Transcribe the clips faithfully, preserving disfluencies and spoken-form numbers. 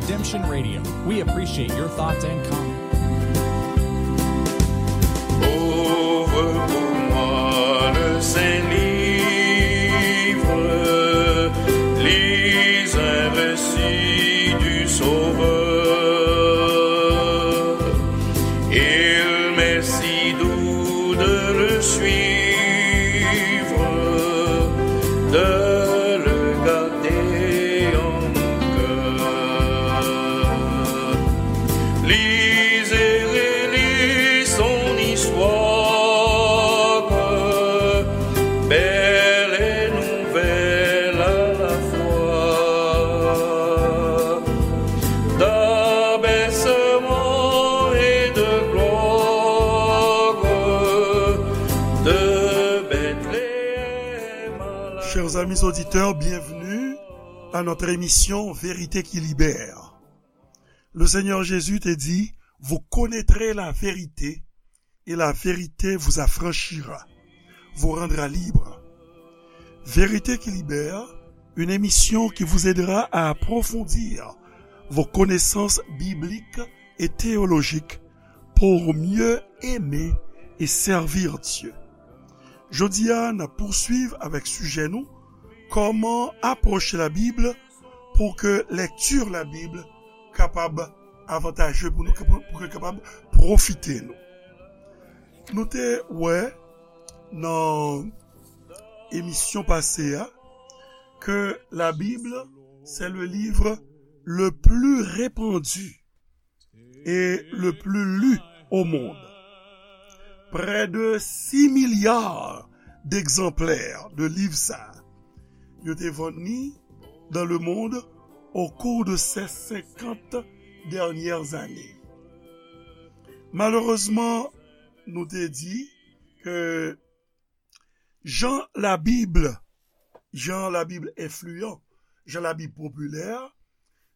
Redemption Radio. We appreciate your thoughts and comments. Ouvre pour moi le saint livre, lis un récit du Sauveur. Il m'est si doux de le suivre, de le garder en mon cœur. Lis et relis son histoire, belle et nouvelle à la fois, d'abaissement et de gloire, de Bethléem à la Chers amis auditeurs, bienvenue à notre émission Vérité qui libère. Le Seigneur Jésus te dit, vous connaîtrez la vérité et la vérité vous affranchira, vous rendra libre. Vérité qui libère, une émission qui vous aidera à approfondir vos connaissances bibliques et théologiques pour mieux aimer et servir Dieu. Jodi a, n ap pouswiv avèk sijè nou, kòman apwoche Labib pou ke lèkti Labib kapab avantaje pou nou, pou, pou ke kapab pwofite nou. Nou te wè nan emisyon pase a ke Labib, c'est le livre le plus répandu et le plus lu au monde. Près de six milliards d'exemplaires de livre sa yo te vann li dans le monde au cours de ces cinquante dernières années. Malerezman, nou te di ke jan Labib, jan Labib enfliyan, jan Labib popilè,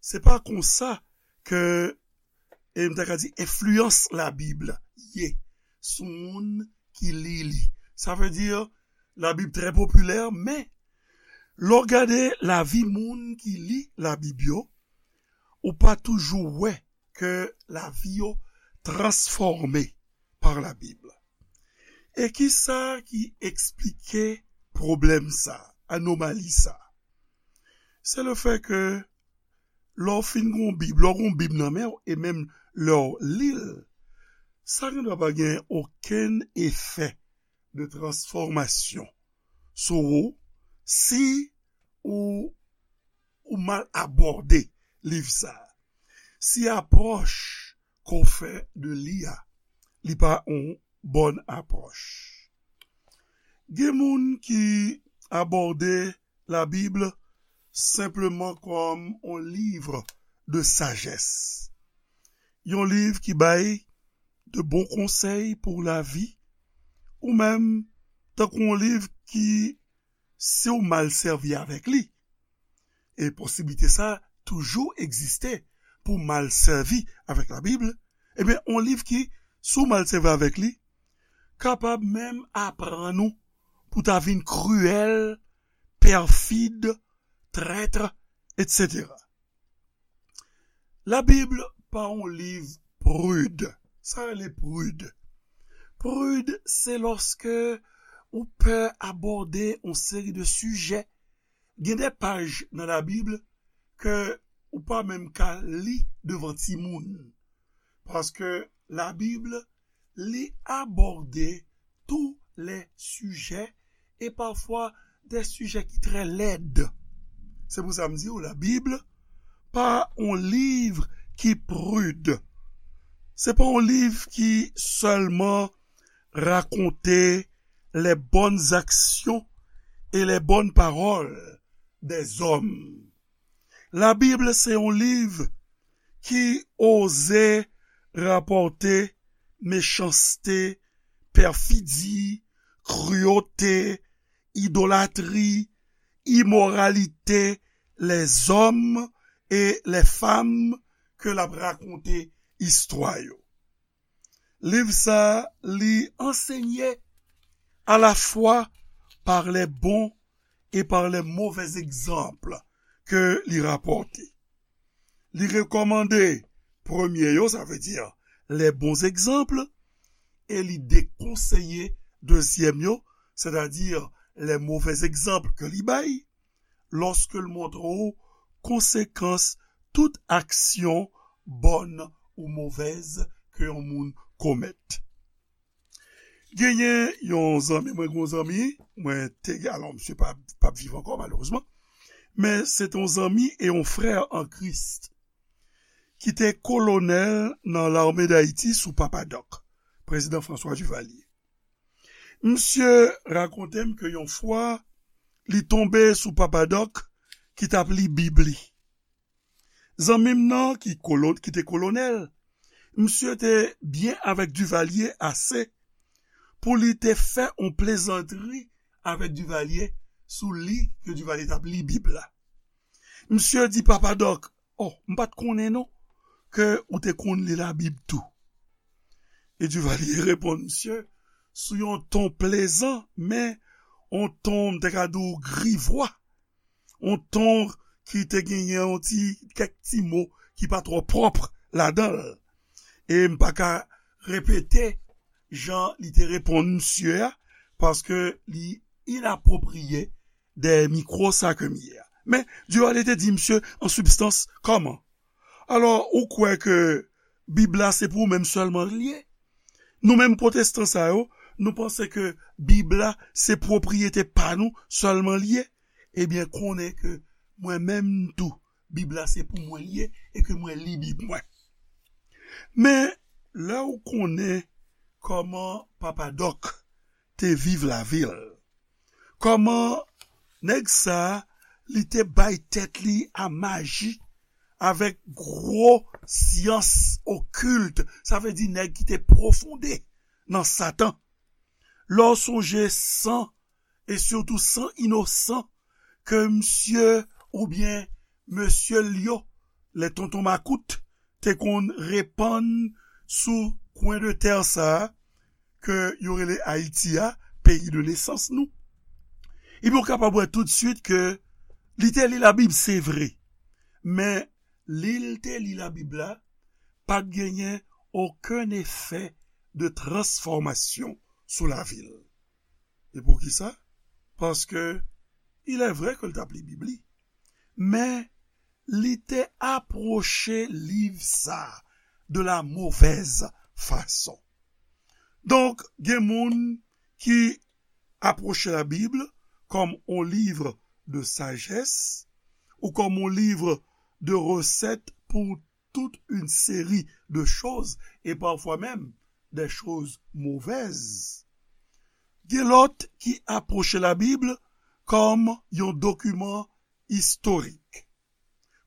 se pa konsa ke, e m ta ka di, enfliyans Labib ye sou moun ki li li. Sa vle di, Labib trè popilè, men lè w gade lavi moun ki li Labib yo, ou pa toujou wè ke lavi yo transfòme pa Labib. E ki sa ki eksplike pwoblèm sa, anomali sa? Se le fè ke lè w fin gen yon Bib, lè w gen yon Bib nan men w, e menm lè w li l, sa gendwa pa gen okenn efè de transfòmasyon sou ou si ou, ou mal abòde liv sa a. Si apwòch ke w fè de li a, li pa yon bòn apwòch. Gen moun ki abòde Labib senpleman kòm yon liv de sajès. Yon liv ki bay de bon konsèy pou lavi, ou menm tankou yon liv ki, si w mal sèvi avèk li, e posiblite sa toujou egziste pou w mal sèvi avèk Labib, ebyen, yon liv ki, si w mal sèvi avèk li, kapab menm aprann ou pou w ta vin kriyèl, pèfid, trèt, etsetera. Labib pa yon liv prid. Sa rele prid? Prid, se lòske ou pè abòde yon seri de sijè. Gen de paj nan Labib ke ou pa menm ka li devan timoun. Paske Labib, li abòde tou lè sijè e pafwa de sijè ki trè lèd. Se pou sa m di w, Labib pa yon liv ki prid. Se pa yon liv ki sèlman rakonte les bonnes actions et les bonnes paroles des hommes. Labib se yon liv ki oze rapòte mechanste, pèfidi, kriyote, idolatri, imoralite lèzòm e lèfam ke l ap rakonte istwa yo. Liv sa a, li ansenye alafwa par les bons et par les mauvais exemples ke li rapòte. Li rekòmande premye yo, sa vle di les bons exemples, e li dekonseye dezyèm yo, sètadi les mauvais exemples ke li bay, lòske l montre w konsekans tout aksyon bòn ou movèz ke yon moun komèt. Genyen yon zanmi mwen, gen yon zanmi mwen te gen, alò, misye pa, p ap viv ankò, malerezman, men se te yon zanmi e yon frè an Kris ki te kolonèl nan Lame d Ayiti sou Papa Dòk, prezidan François Duvalier. Misye rakonte m ke yon fwa, li tonbe sou Papa Dòk ki t ap li Bib li. Zanmi m nan, ki, kolon, ki te kolonèl, misye te byen avèk Duvalier ase pou li te fè yon plezantri avèk Duvalier sou li ke Duvalier t ap li Bib la. Misye di Papa Dòk, "Oh, m pa t konnen non ke ou te konn li Labib tou." E Duvalier reponn misye sou yon ton plezan, men yon ton, m te ka di w, grivwa, yon ton ki te genyen yon ti, kèk ti mo ki pa twò pwòp ladan l. E m pa ka repete jan li te reponn misye a, paske li inapwopriye dèyè mikwo sa ke m ye a. Men, Duvalier te di misye an sibstans, kòman? Alò, ou kwè ke Bib la se pou ou menm sèlman l ye? Nou menm pwotestan sa yo, nou panse ke Bib la se pwopriyete pa nou sèlman l ye? Ebyen, konnen ke mwen menm tou, Bib la se pou mwen l ye e ke mwen li Bib mwen. Men, lè ou konnen kòman Papa Dòk te viv lavi l, kòman nèg sa a, li te bay tèt li a maji avèk gwo syans okilt, sa vle di nèg ki te pwofonde nan Satan. Lè w sonje san, e sitou san inosan, ke misye oubyen mesye l yo, lè tonton makout, te konn repann sou kwen de tè sa a, ke yo rele Ayiti a, peyi de nesans nou. Ebyen, ou kapab wè toutswit ke li te li Labib, se vre, men li l te li Labib la, pa t genyen okenn efè de transfòmasyon sou lavi l. E poukisa? Paske, il est vrai ke l t ap li Bib li, men li te apwoche liv sa a de la mauvaise façon. Donk, gen moun ki apwoche Labib kòm yon liv de sajès ou kòm yon liv de resèt pou toute une série de choses, et parfois même des choses mauvaises. Gen lòt ki apwoche Labib kòm yon dokiman istorik,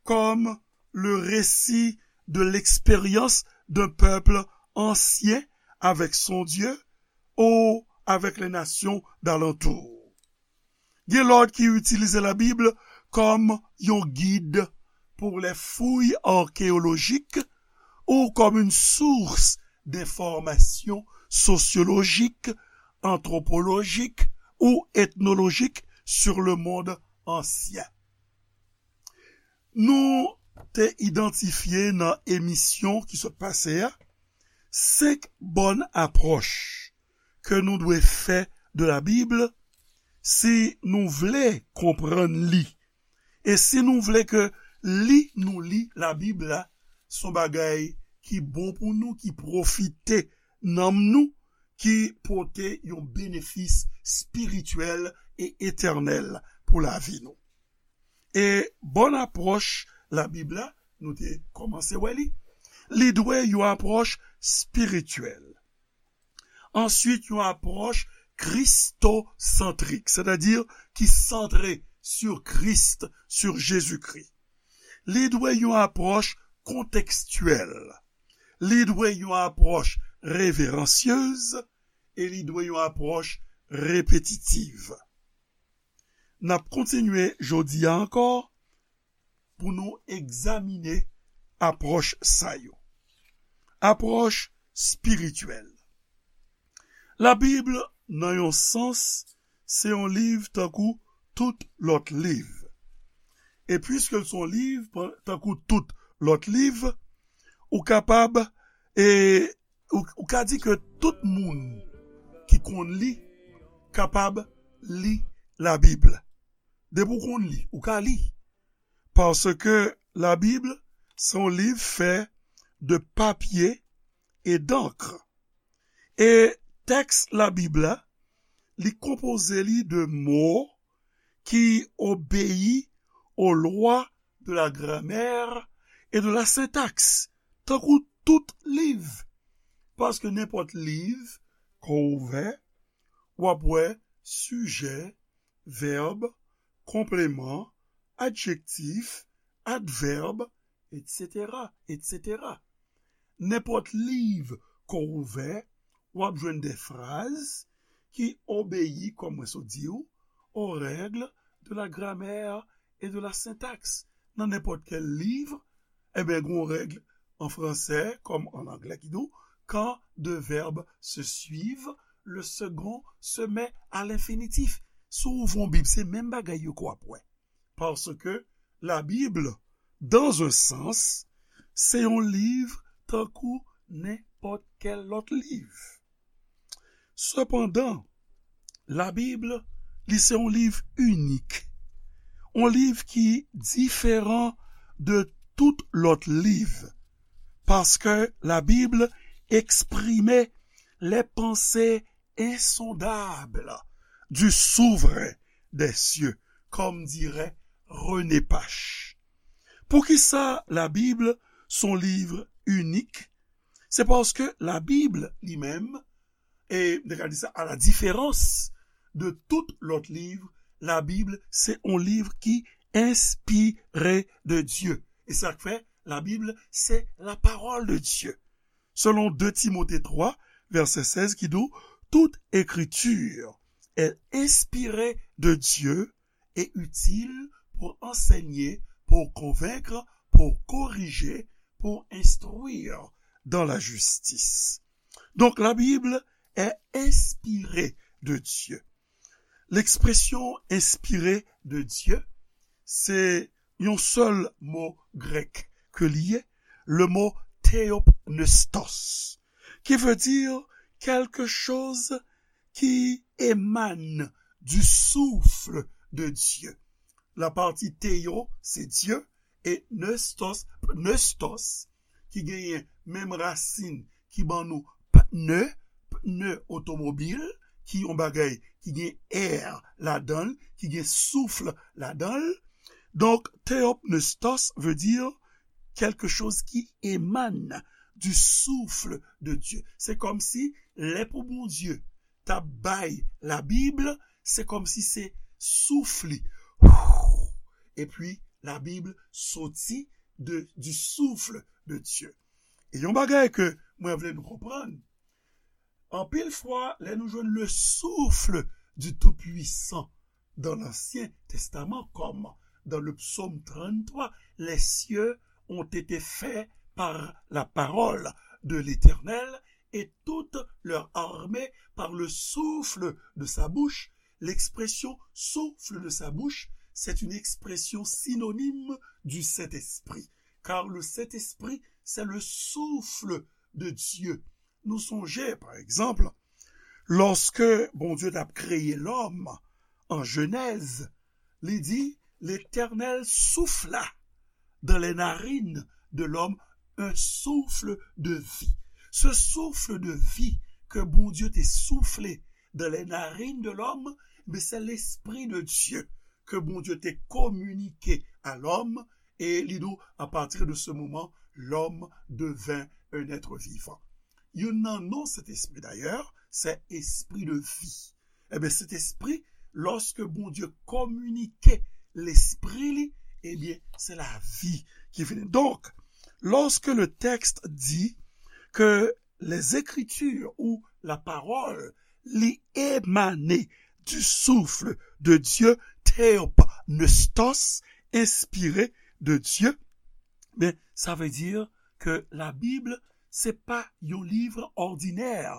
comme le récit de l'expérience d'un peuple ancien avec son Dieu ou avec les nations d'alentour. Gen lòt ki itilize Labib kòm yon gid pour les fouilles archéologiques ou comme une source d'informations sociologiques, anthropologiques ou ethnologiques sur le monde ancien. Nou te idantifye nan emisyon ki sot pase a senk bòn apwòch ke nou dwe fè de Labib si nou vle konprann li. E si nou vle ke li nou li Labib la, se yon bagay ki bon pou nou, ki pwofite nanm nou, ki pote yon benefis espirityèl e etènèl pou lavi nou. E bòn apwòch Labib la, nou te kòmanse wè li, li dwe yon apwòch espirityèl. Answit, yon apwòch kristosantrik, sètadi ki santre sur Christ, sur Jésus-Christ. Li dwe yon apwòch kontekstyèl. Li dwe yon apwòch reveransyez e li dwe yon apwòch repetitiv. N ap kontinye jodi a ankò pou nou egzamine apwòch sa yo. Apwòch espirityèl. Labib, nan yon sans, se yon liv tankou tout lòt liv. E piske l se yon liv, pa- tankou tout lòt liv, ou kapab, e, ou, ou ka di ke tout moun ki konn li kapab li Labib. Depi w konn li, ou ka li. Paske Labib, se yon liv fè de papye e dankr. E tèks Labib la, li konpoze li de mo ki obeyi aux lois de la grammaire et de la syntaxe, tankou tout liv. Paske nenpòt liv, kò ouvè, w ap wè sijè, vèb, konpleman, adjektif, advèb, etsetera, etsetera. Nenpòt liv kò ouvè, w ap jwenn de fraz ki obeyi, kòm mwen sot di w, aux règles de la grammaire et de la syntaxe. Nan nenpòt kèl liv, ebyen, gen yon règ an fransè, kòm an anglè, ki di w, quand deux verbes se suivent, le second se met à l'infinitif. Si w ouvri yon Bib, se menm bagay yo ke w ap wè. Paske Labib, dans un sens, se yon liv tankou nenpòt kèl lòt liv. Sepandan, Labib, li se yon liv inik. Yon liv ki diferan de tout lòt liv. Paske Labib eksprime les pensées insondables du souverain des cieux, comme dirait René Pache. Poukisa Labib se yon liv inik? Se paske Labib li menm, e m te ka di sa, à la différence de tout lòt liv, Labib se yon liv ki enspire de Dye. E sa k fè Labib se la parole de Dieu. Selon deux Timothée trois, verset seize, qui dit, toute écriture est inspirée de Dieu et utile pour enseigner, pour convaincre, pour corriger, pour instruire dans la justice. Donc la Bible est inspirée de Dieu. L'expression inspirée de Dieu, se yon sèl mo grèk ke li ye, le mot theopneustos, qui veut dire quelque chose qui émane du souffle de Dieu. La partie theo, se Dye, e pneustos, pneustos, ki genyen menm rasin ki ban nou pne, pne otomobil, ki yon bagay ki gen air ladan l, ki gen souf ladan l. Donk, theopneustos veut dire quelque chose qui émane du souffle de Dieu. Se kòmsi lè pou Bondye t ap bay Labib, se kòmsi se souf li. Epi Labib soti de, du souffle de Dieu. E yon bagay ke mwen vle nou konprann, anpil fwa, lè nou jwenn le souffle du Tout-Puissant dans l'Ancien Testament, comme dans le psaume trente-trois, les cieux ont été faits par la parole de l'Éternel et toute leur armée par le souffle de sa bouche. L'expression souffle de sa bouche, c'est une expression synonyme du Saint-Esprit, car le Saint-Esprit, c'est le souffle de Dieu. Nou sonje, pa egzanp, lòske Bondye t ap kreye lòm an Jenèz, li di, L'Éternel souffla dans les narines de l'homme un souffle de vie. Ce souffle de vie ke Bondye te soufle dans les narines de l'homme, men se Lespri de Dye ke Bondye te kominike a lòm, e li di w, à partir de ce moment, l'homme devint un être vivant. Youn nan non Sentespri, dayè, se Espri de vi. Ebyen, Sentespri, lòske Bondye kominike Lespri li, ebyen, se lavi ki vini. Donk, lorsque le texte dit que les Écritures ou la parole li émane du souffle de Dieu, theopneustos, inspiré de Dieu, ben, sa vle di ke Labib, se pa yon liv òdinè,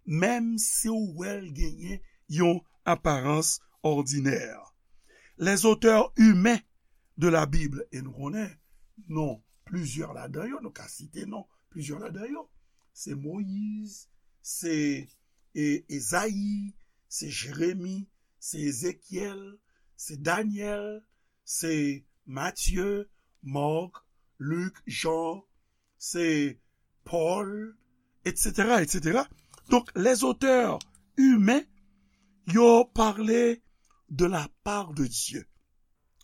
menm si w wè l genyen yon aparans òdinè. Les auteurs humains de la Bible, e nou konnen non plizyè ladan yo, nou ka site non plizyè ladan yo. Se Moyiz, se e, Ezayi, se Jeremi, se Ezekyèl, se Danyèl, se Matye, Mak, Lik, Jan, se Pòl, etsetera, etsetera. Donk, les auteurs humains, yo pale de la part de Dieu.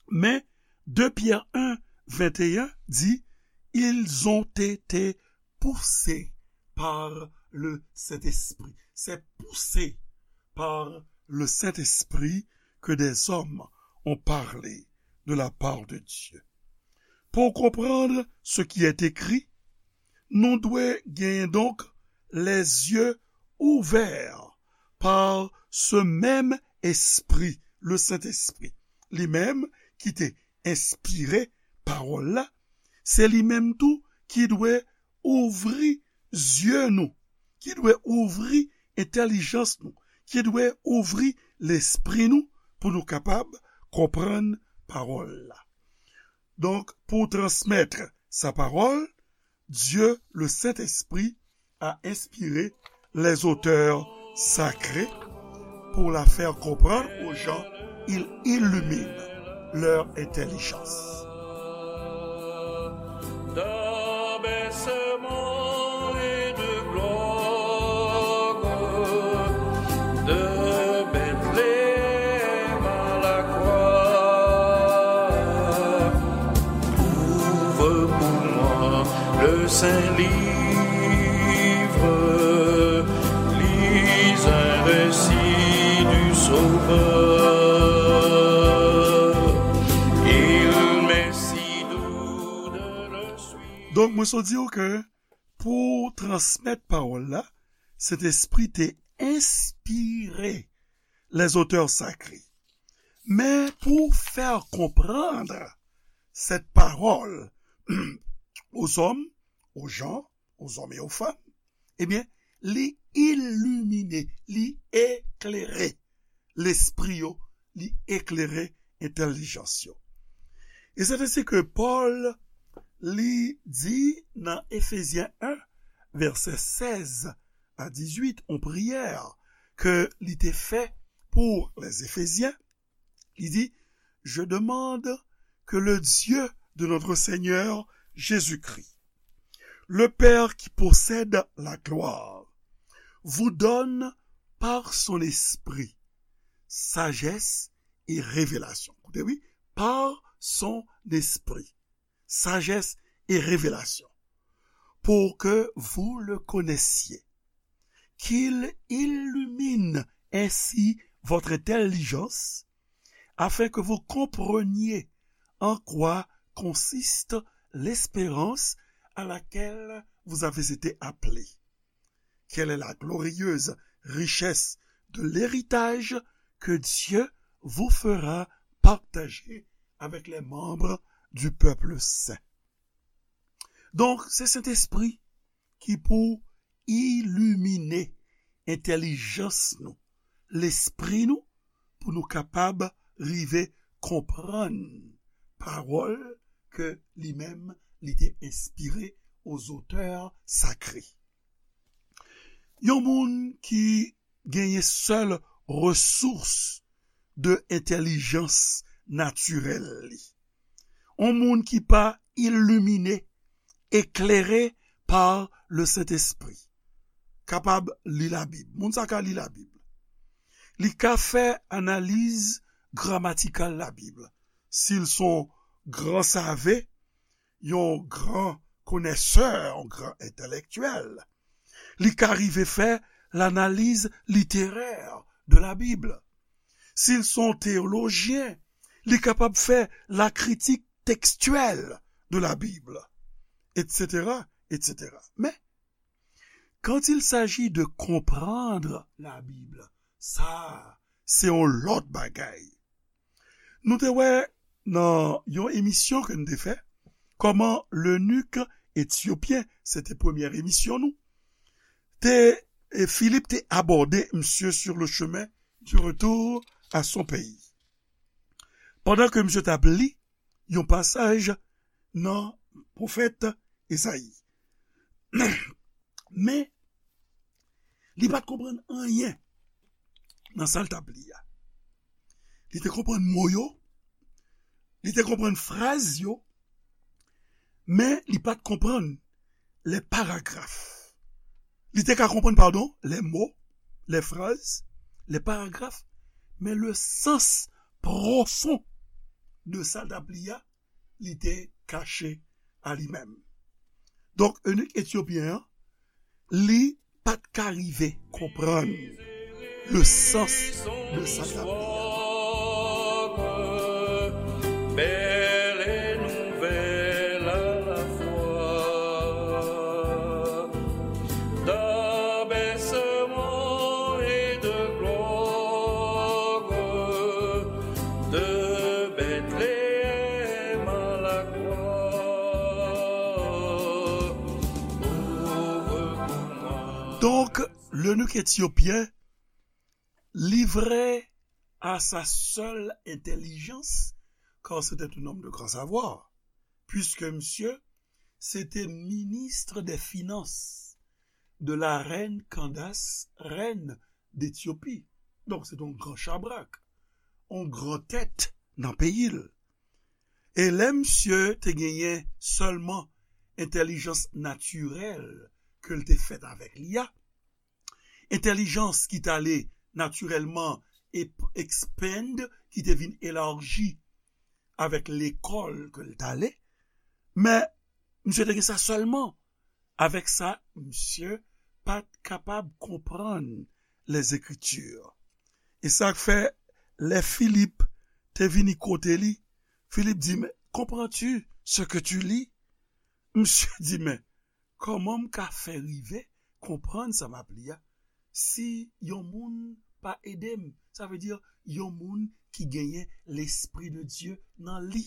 Men, de Pyè en, venteyen di, ils ont été poussés par le Saint-Esprit. C'est poussé par le Saint-Esprit que des hommes ont parlé de la part de Dieu. Pou konprann ce qui est écrit, nou dwe genyen donk les yeux ouverts par ce même Esprit, le Saint-Esprit. Li menm ki te enspire pawòl la, se li menm tou ki dwe ouvri zye nou, ki dwe ouvri entèlijans nou, ki dwe ouvri lespri nou pou nou kapab konprann pawòl la. Donk, pou transmèt sa pawòl, Dieu, le Saint-Esprit, a inspiré les auteurs sacrés pour la faire comprendre aux gens, il illumine leur intelligence. D'abaissement et de gloire, de Bethléem à la croix, ouvre pour moi le saint livre, lis un récit du Sauveur. Il m'est si doux de le suivre. Donk, mwen sot di w ke pou transmèt pawòl la, Sentespri te enspire les auteurs sacrés. Men pou fè konprann cette parole aux hommes, aux gens, aux hommes et aux femmes, ebyen, li ilimine, li eklere lespri yo, li eklere entèlijans yo. E se ensi ke Pòl, li di nan Efezyen en, vèsè sèz a dizuit, yon priyè ke li te fè pou les Éphésiens, li di, Je demande que le Dieu de notre Seigneur Jésus-Christ, le Père qui possède la gloire, vous donne par son Esprit sagesse et révélation. Koute, wi, par son Esprit, sagesse et révélation, pour que vous le connaissiez, qu'il illumine ainsi votre intelligence, afin que vous compreniez en quoi consiste l'espérance à laquelle vous avez été appelés. Quelle est la glorieuse richesse de l'héritage que Dieu vous fera partager avec les membres du peuple saint. Donk, se Sentespri ki pou ilimine entèlijans nou, lespri nou, pou nou kapab rive konprann pawòl ke li menm li te enspire aux auteurs sacrés. Yon moun ki genyen sèl resous de entèlijans natirèl li. Yon moun ki pa ilimine, eklere pa le Sentespri, kapab li Labib. Moun sa ka li Labib. Li ka fè analiz gramatikal Labib. Si l se yon gran save, yon gran konèsè, yon gran entèlektyèl, li ka rive fè lanaliz literè de la Bib. Si l se yon teyolojyen, li kapab fè la critique textuelle de la Bible, etsetera, etsetera. Men, quand il s'agit de comprendre la Bible, sa, se yon lòt bagay. Nou te wè nan yon emisyon ke n te fè, kòman lenik etyopyen, se te premyè emisyon nou, te, e Filip te abòde misye sur le chemin du retour à son pays. Pandan ke misye t ap li yon pasaj nan pwofèt Ezayi. Men, li pa t konprann anyen nan sa l t ap li a. Li te konprann mo yo, li te konprann fraz yo, men li pa t konprann lè paragraf. Li te ka konprann, padon, lè mo, lè fraz, lè paragraf, men le sans pwofon de sa l t ap li a, li te kache a li menm. Donk, enik etyopyen an, li pa t ka rive konprann le sans de sa k ap li a. Belle nouvelle à la fois, d'abaissement et de gloire, de Bethléem à la croix. Donk, lenik etyopyen, livré à sa seule intelligence, car c'était un homme de grand savoir, puisque monsieur, c'était ministre des finances de la reine Candace, reine d'Éthiopie. Donk, se te yon gran chabrak, yon gran tèt nan peyi l. E lè misye te genyen sèlman entèlijans natirèl ke l te fèt avèk li a, entèlijans ki t ale natirèlman ep-, expand, ki te vin elaji avèk lekòl ke l t ale, men misye te gen sa sèlman. Avèk sa, misye pa t kapab konprann Lèzekriti. E sa k fè, lè Filip te vini kote li, Filip di, "Mais comprends-tu ce que tu lis?" Misye di, "Men, kòman m ka fè rive konprann sa m ap li a, si yon moun pa ede m?" Sa vle di, yon moun ki genyen Lespri de Dye nan li.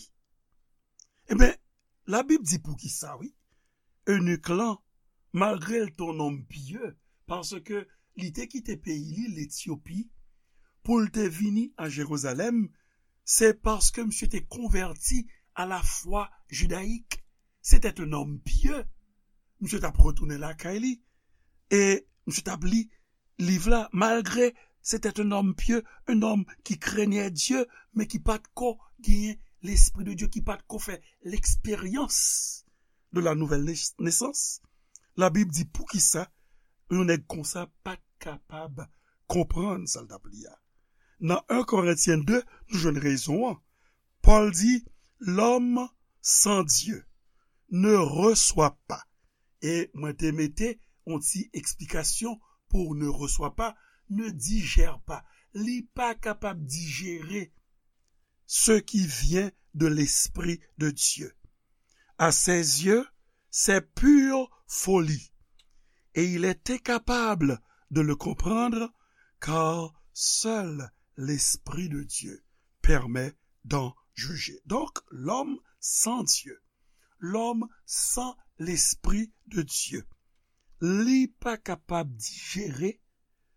Ebyen, Labib di poukisa, wi. Enik lan, malgre l te yon nonm pye, paske li te kite peyi li, Letyopi, pou l te vini a Jerizalèm, se paske misye te konvèti a lafwa jidayik. Se te yon nonm pye. Misye t ap retounen lakay li. E misye t ap li liv la, malgre se te yon nonm pye, yon nonm ki krenye Dye, men ki pa t ko genyen Lespri de Dye, ki pa t ko fè leksperyans de la nouvelle nais-, naissance. Labib di poukisa yon nèg konsa pa t kapab konprann sa l t ap li a. Nan en Korentyen de, nou jwenn rezon an. Pòl di, "L'homme sans Dieu ne reçoit pas." E mwen te mete yon ti eksplikasyon pou ne reçoit pas, ne digère pas. Li pa kapab dijere ce qui vient de l'Esprit de Dieu. À ses yeux, c'est pure folie. Et il est incapable de le comprendre, car seul l'Esprit de Dieu permet d'en juger. Donc, l'homme sans Dieu, l'homme sans l'Esprit de Dieu, li pa kapab dijere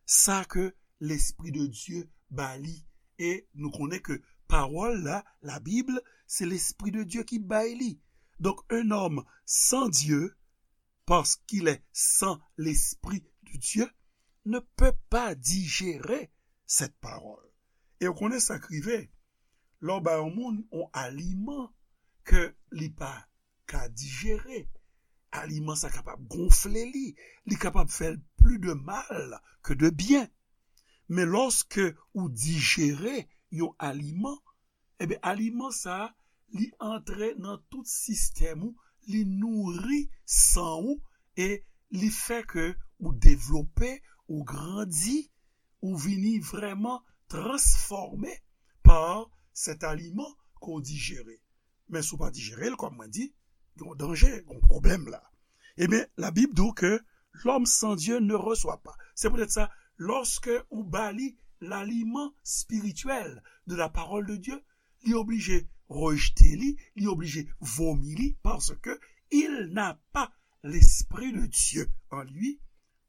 sa ke Lespri de Dye ba li. E nou konnen ke pawòl la, la Bible, se Lespri de Dye ki bay li. Donc, un homme sans Dieu, parce qu'il est sans l'Esprit de Dieu, ne peut pas digérer cette parole. E w konnen sa k rive, lè w ba yon moun yon aliman ke li pa ka dijere, aliman sa kapab gonfle li, li kapab fè l pli de mal ke de byen. Men lòske ou dijere yon aliman, ebyen, aliman sa a, li antre nan tout sistèm ou, li nouri san ou, e li fè ke ou devlope, ou grandi, ou vini vrèman transfòme pa sèt aliman ke w dijere. Men si w pa dijere l, kòm mwen di, gen yon danje, gen yon pwoblèm la. Ebyen, Labib di w ke l'homme sans Dieu ne reçoit pas. Se poutèt sa, lòske ou ba li laliman espirityèl de la parole de Dieu, li oblije rejte li, li oblije vomi li, paske il n'a pas l'Esprit de Dieu en lui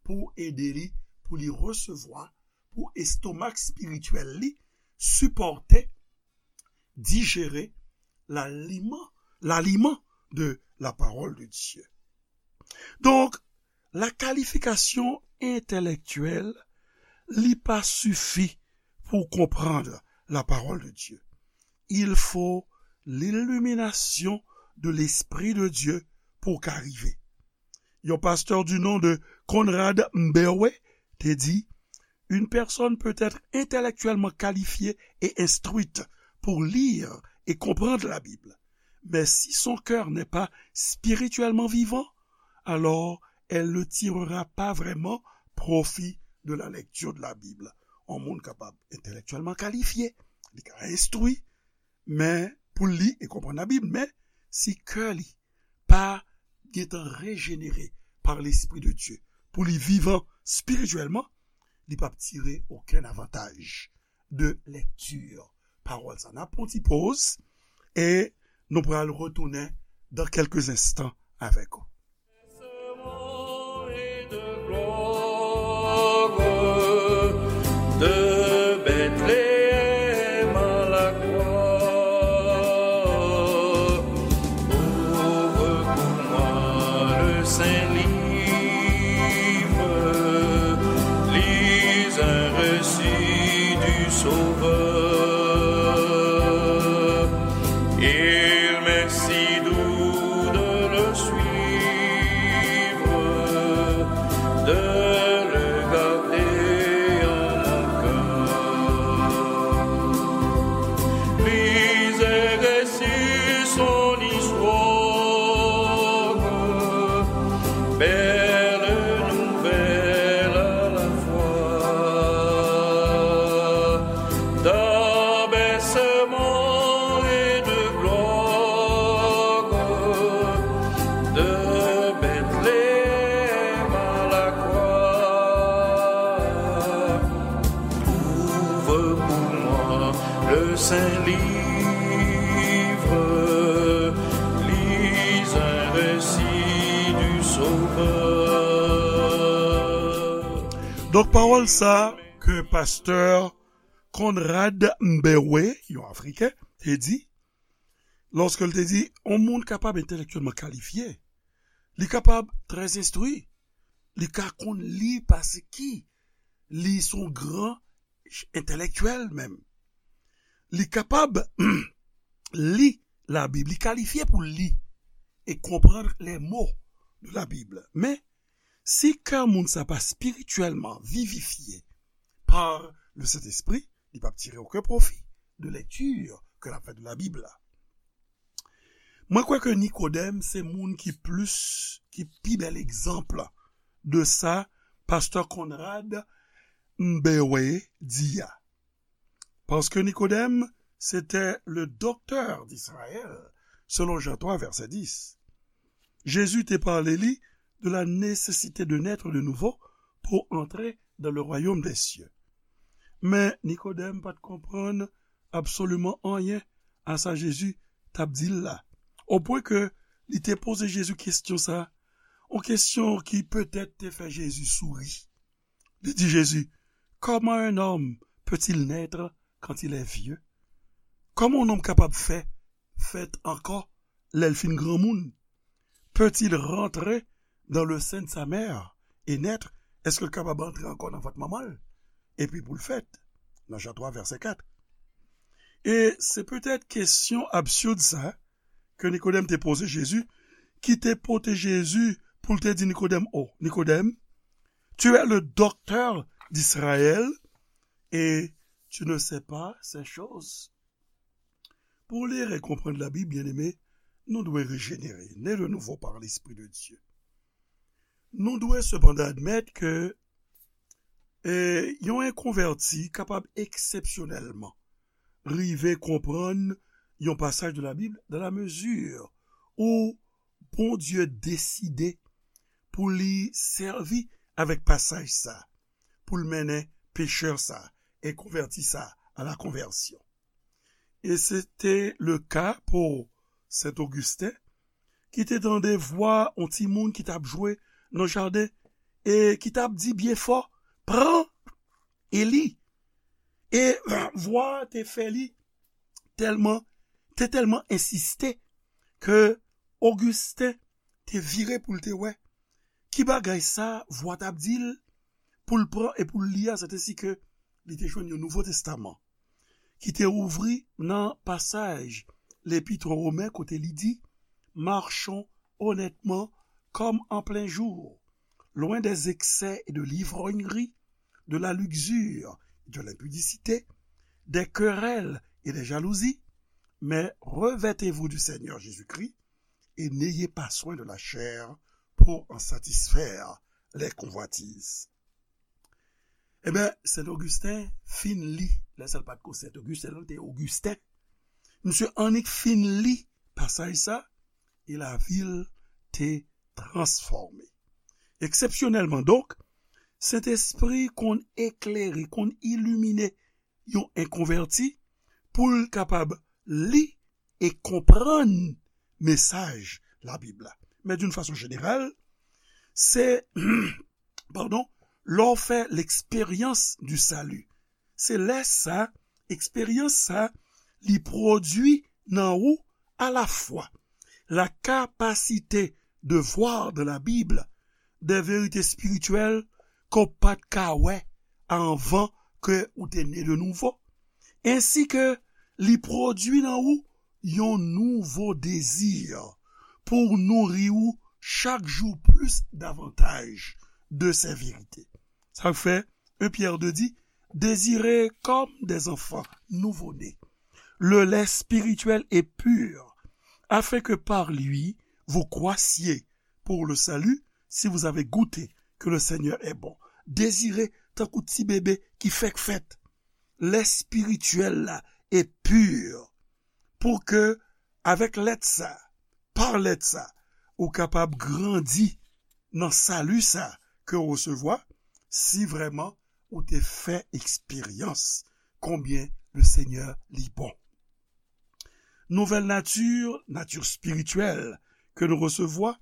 pou ede li, pou li resevwa, pou estomak espirityèl li sipòte, dijere laliman, laliman de la parole de Dieu. Donk, la qualification intellectuelle, li pa sifi pou konprann la parole de Dieu. Il faut l'illumination de l'Esprit de Dieu pou ka rive. Yon pastè du nom de Conrad Mbewe te di, une personne peut être intellectuellement qualifiée et instruite pour lire et comprendre la Bible, mais si son cœur n'est pas spirituellement vivant, alors elle ne tirera pas vraiment profit de la lecture de la Bible. Yon moun kapab entèlektyèlman kalifye, li ka enstwi, men pou li e konprann Labib, men si kè li pa gentan rejenere par l'Esprit de Dieu, pou li vivan spirityèlman, li p ap tire okenn avantaj de lèkti pawòl sa. N ap pran ti poz e nou pral retounen dans quelques instants avec vous. De Bethléem à la croix, ouvre pour moi le saint livre, lis un récit du Sauveur. Il m'est si doux de le suivre, de le garder en mon cœur. Lis et récite son histoire, belle nouvelle à la fois. D'abaissement et de gloire, de Bethléem à la croix, ouvre pour moi le saint livre, lis un récit du Sauveur. Donk, pawòl sa ke pastè Conrad Mbewe, yon Afriken, te di, lòske l te di, yon moun kapab entèlektyèlman kalifye, li kapab trè enstwi, li ka konn li paske li se yon gran entèlektyèl menm. Li kapab li Labib, li kalifye pou li e konprann les mots de la Bible. Men, si kè moun sa pa spirityèlman vivifye par le Saint-Esprit, li p ap tire okenn pwofi de lèkti ke l ap fè de Labib la. Mwen kwè ke Nikodèm se moun ki plis, ki pi bèl egzanp de sa pastè Conrad Mbewe di a. Paske Nikodèm, se te le docteur d'Israël, selon Jean trois, verset dix. Jezi te pale li de la nécessité de naître de nouveau pour entrer dans le royaume des cieux. Men Nikodèm pa t konprann absoliman anyen a sa Jezi t ap di l la, opwen ke li te poze Jezi kesyon sa, yon kesyon ki petèt te fè Jezi souri. Li di Jezi, comment un homme peut-il naître quand il est vieux? Kòman yon nonm kapab fè fèt ankò lè l fin granmoun? Peut-il rentrer dans le sein de sa mère et naître? Èske l kapab antre ankò nan vant manman l epi pou l fèt? Nan Jan twa, vèsè kat. E se petèt kesyon absid sa ke Nikodèm te poze Jezi, ki te pote Jezi pou l te di Nikodèm, oh, Nikodèm, tu es le docteur d'Israël et tu ne sais pas ces choses. Pou lire e konprann Labib, byeneme, nou dwe rejenere, né de nouveau par l'Esprit de Dieu. Nou dwe sepandan admèt ke e, yon enkonvèti kapab eksepsyonèlman rive konprann yon pasaj de Labib dans la mesure où Bondye deside pou li sèvi avèk pasaj sa, pou l mennen pechè sa, enkonvèti sa, à la conversion. E se te le ka pou Sen Ogisten, ki te tande vwa yon timoun ki t ap jwe nan jaden e ki t ap di byen fò, pran e li. E vwa a te fè li tèlman, te tèlman ensiste ke Ogisten te vire pou l te wè ki bagay sa vwa t ap di l pou l pran e pou l li a, sètesi ke li te jwenn yon Nouvo Testaman ki te ouvri nan pasaj Lepit o Women kote li di, Marchons honnêtement comme en plein jour, loin des excès et de l'ivrognerie, de la luxure et de l'impudicité, des querelles et des jalousies, mais revêtez-vous du Seigneur Jésus-Christ et n'ayez pas soin de la chair pour en satisfaire les convoitises. Ebyen, Sent Ogisten fin li, lè sa l pa t ko Sent Ogisten, li te Ogisten. Misye annik fin li pasaj sa, e lavi l te transfòme. Eksepsyonèlman donk, Sentespri konn eklere, konn ilimine yon enkonvèti pou l kapab li e konprann mesaj Labib la. Men d'une façon générale, se, padon, lè w fè l'expérience du salut. Se lè sa, eksperyans sa, li pwodui nan ou à la fois la capacité de voir dans la Bible des vérités spirituelles ke w pa t ka wè anvan ke ou te ne de nouvo, ensi ke li pwodui nan ou yon nouvo dezi pou nouri ou chak jou plis davantaj de ces vérités. Sa fè, un Pierre deux di, désirez comme des enfants nouveau-nés le lait spirituel et pur, afin que par lui vous croissiez pour le salut, si vous avez goûté que le Seigneur est bon. Dezire tankou ti bebe ki fèk fèt, lè espirityèl la e pur, pou ke avèk lèt sa, pa lèt sa, ou kapab grandi nan sali sa ke w resevwa, si vrèman ou te fè eksperyans konbyen le Senyè li bon. Nouvèl nati, nati espirityèl ke nou resevwa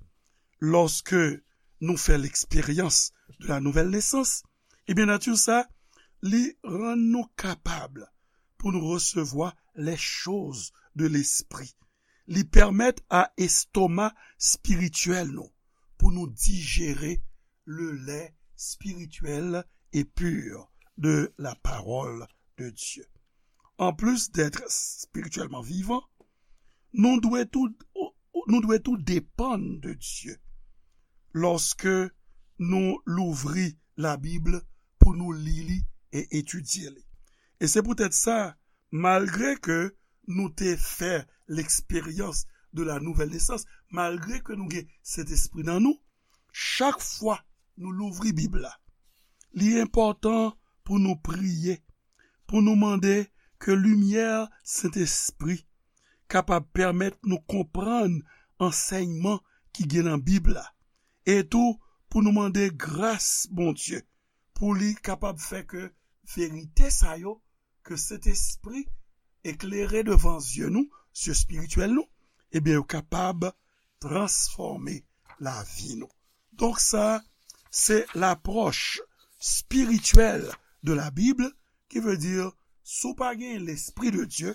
lòske nou fè l'expérience de la nouvelle naissance, ebyen nati sa, li rann nou kapab pou nou resevwa les choses de l'esprit. Li pèmèt a estoma espirityèl nou pou nou dijere le lait spirituel et pur de la parole de Dieu. En plus d'être spirituellement vivant, nou dwe tou, nou dwe tou depann de Dye lòske nou louvri Labib pou nou li li e etidye li. E se poutèt sa, malgre ke nou te fè l'expérience de la nouvelle naissance, malgre ke nou gen Sentespri nan nou, chak fwa nou louvri Bib la, li enpòtan pou nou priye, pou nou mande ke limyè Sentespri kapab pèmèt nou konprann ansèyman ki gen nan Bib la, e tou pou nou mande gras Bondye pou li kapab fè ke verite sa yo ke Sentespri eklere devan zye nou, zye espirityèl nou, ebyen, yo kapab transfòme lavi nou. Donk, sa, se lapwòch espirityèl de la Bible, qui veut dire, si w pa gen l'Esprit de Dieu,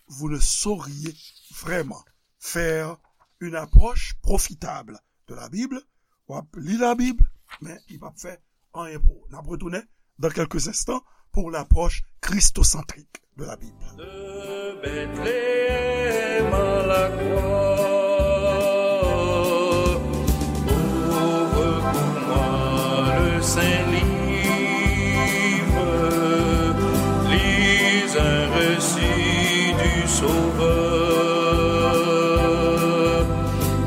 vous ne sauriez vraiment faire une approche profitable de la Bible. W ap li Labib, men li p ap fè anyen pou ou. N ap retounen dans quelques instants pour l'approche christocentrique de la Bible. De Bethléem à la croix, ouvre pour moi le saint livre, lis un récit du Sauveur.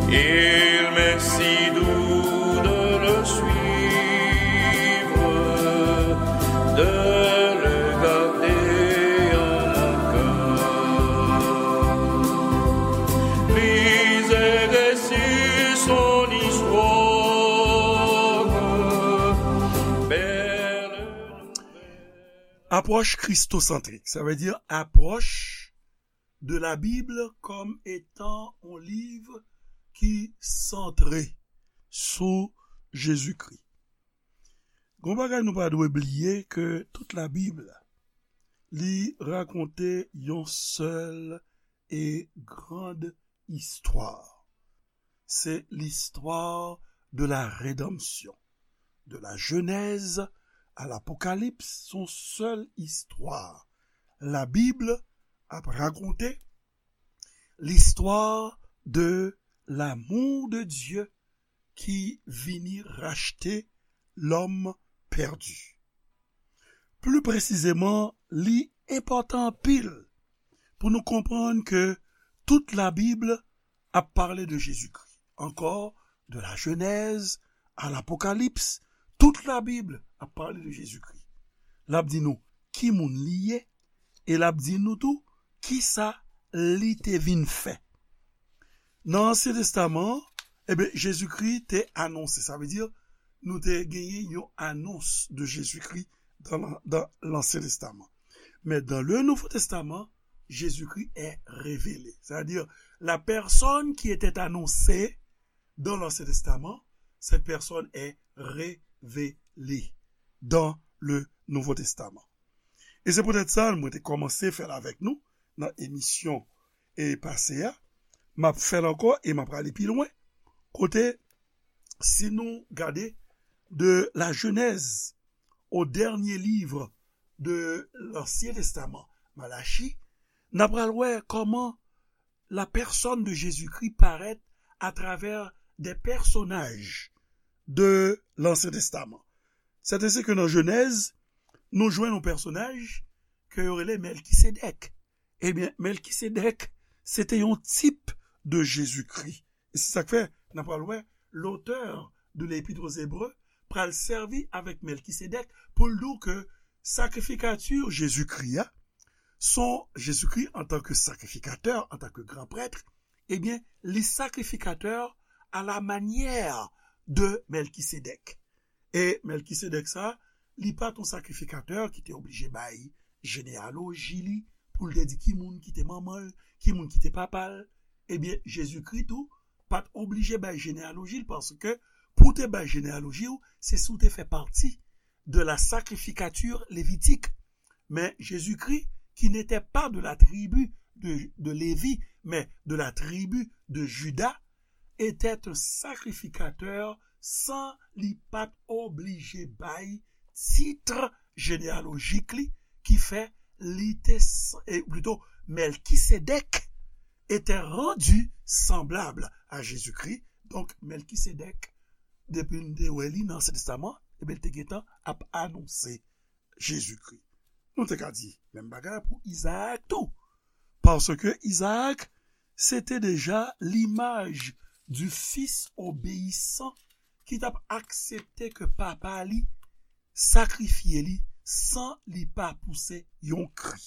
Il m'est si doux de le suivre, de le garder en mon cœur. Lis et récite son histoire, belle nouvelle. Apwòch kristosantrik, sa vle di apwòch de la Bible comme étant un livre qui centré sou Jezikri. Gon bagay nou pa dwe bliye ke tout Labib li rakonte yon sèl e grand istwa. c'est l'histoire de la rédemption. De la Genèse à l'Apocalypse, son sèl istwa. La Bible ap rakonte l'histoire de l'amour de Dieu ki vini rachte lòm pèdi. Pli presizeman, li enpòtan anpil pou nou konprann ke tout Labib ap pale de Jezikri. Ankò, de la Genèse à l'Apocalypse, tout Labib ap pale de Jezikri. L ap di nou ki moun li ye, e l ap di nou tou kisa li te vin fè. Nan Ansyen Testaman, ebyen, Jezikri te anonse. Sa vle di, nou te genyen yon anons de Jezikri dans l'an- dans l'Ancien Testament. Mais dans le Nouveau Testament, Jésus-Christ est révélé. C'est-à-dire, la personne qui était annoncée dans l'Ancien Testament, cette personne est révélée dans le Nouveau Testament. E se poutèt sa, mwen te kòmanse fè l avèk nou nan emisyon e pase a. M ap fè l ankò e m ap prale pi lwen. Kote, si nou gade de la Genèse au dernier livre de l'Ancien Testament, Malachi, n ap pral wè kòman la personne de Jésus-Christ paraît à travers des personnages de l'Ancien Testament. C'est ainsi que nan Genèse, nou jwenn yon pèsonaj ke yo rele Mèlkisedèk. Ebyen, Mèlkisedèk, se te yon tip de Jezikri. E se sa k fè, n ap pral wè, l'auteur de l'Épître aux Hébreux pral sèvi avèk Mèlkisedèk pou l di w ke sakrifikati Jezikri a, son Jezikri antanke sakrifikatè, antanke gran prèt, ebyen, li sakrifikatè à la manière de Mèlkisedèk. E Mèlkisedèk sa, li pa t yon sakrifikatè ki te oblije bay jeneyaloji li, pou l te di ki moun ki te manman l, ki moun ki te papa l. Ebyen, Jezikri tou pa t oblije bay jeneyaloji l, paske pou w te bay jeneyaloji w, se si w te fè pati de la sacrificature lévitique. Mais Jésus-Christ, qui n'était pas de la tribu de, de Lévi, mais de la tribu de Juda, était un sacrificateur sans li pa t oblije bay tit jeneyalojik li, ki fè li te, s- e plito, Mèlkisedèk était rendu semblable à Jésus-Christ. Donk, Mèlkisedèk, depi n te wè li nan Ansyen Testaman, ebyen, l te gentan ap anonse Jezikri. Nou te ka di menm bagay pou Izaak tou. Paske Izaak, se te deja limaj du fils obéissant ki t ap aksepte ke papa li sakrifye li san li pa pouse yon kri.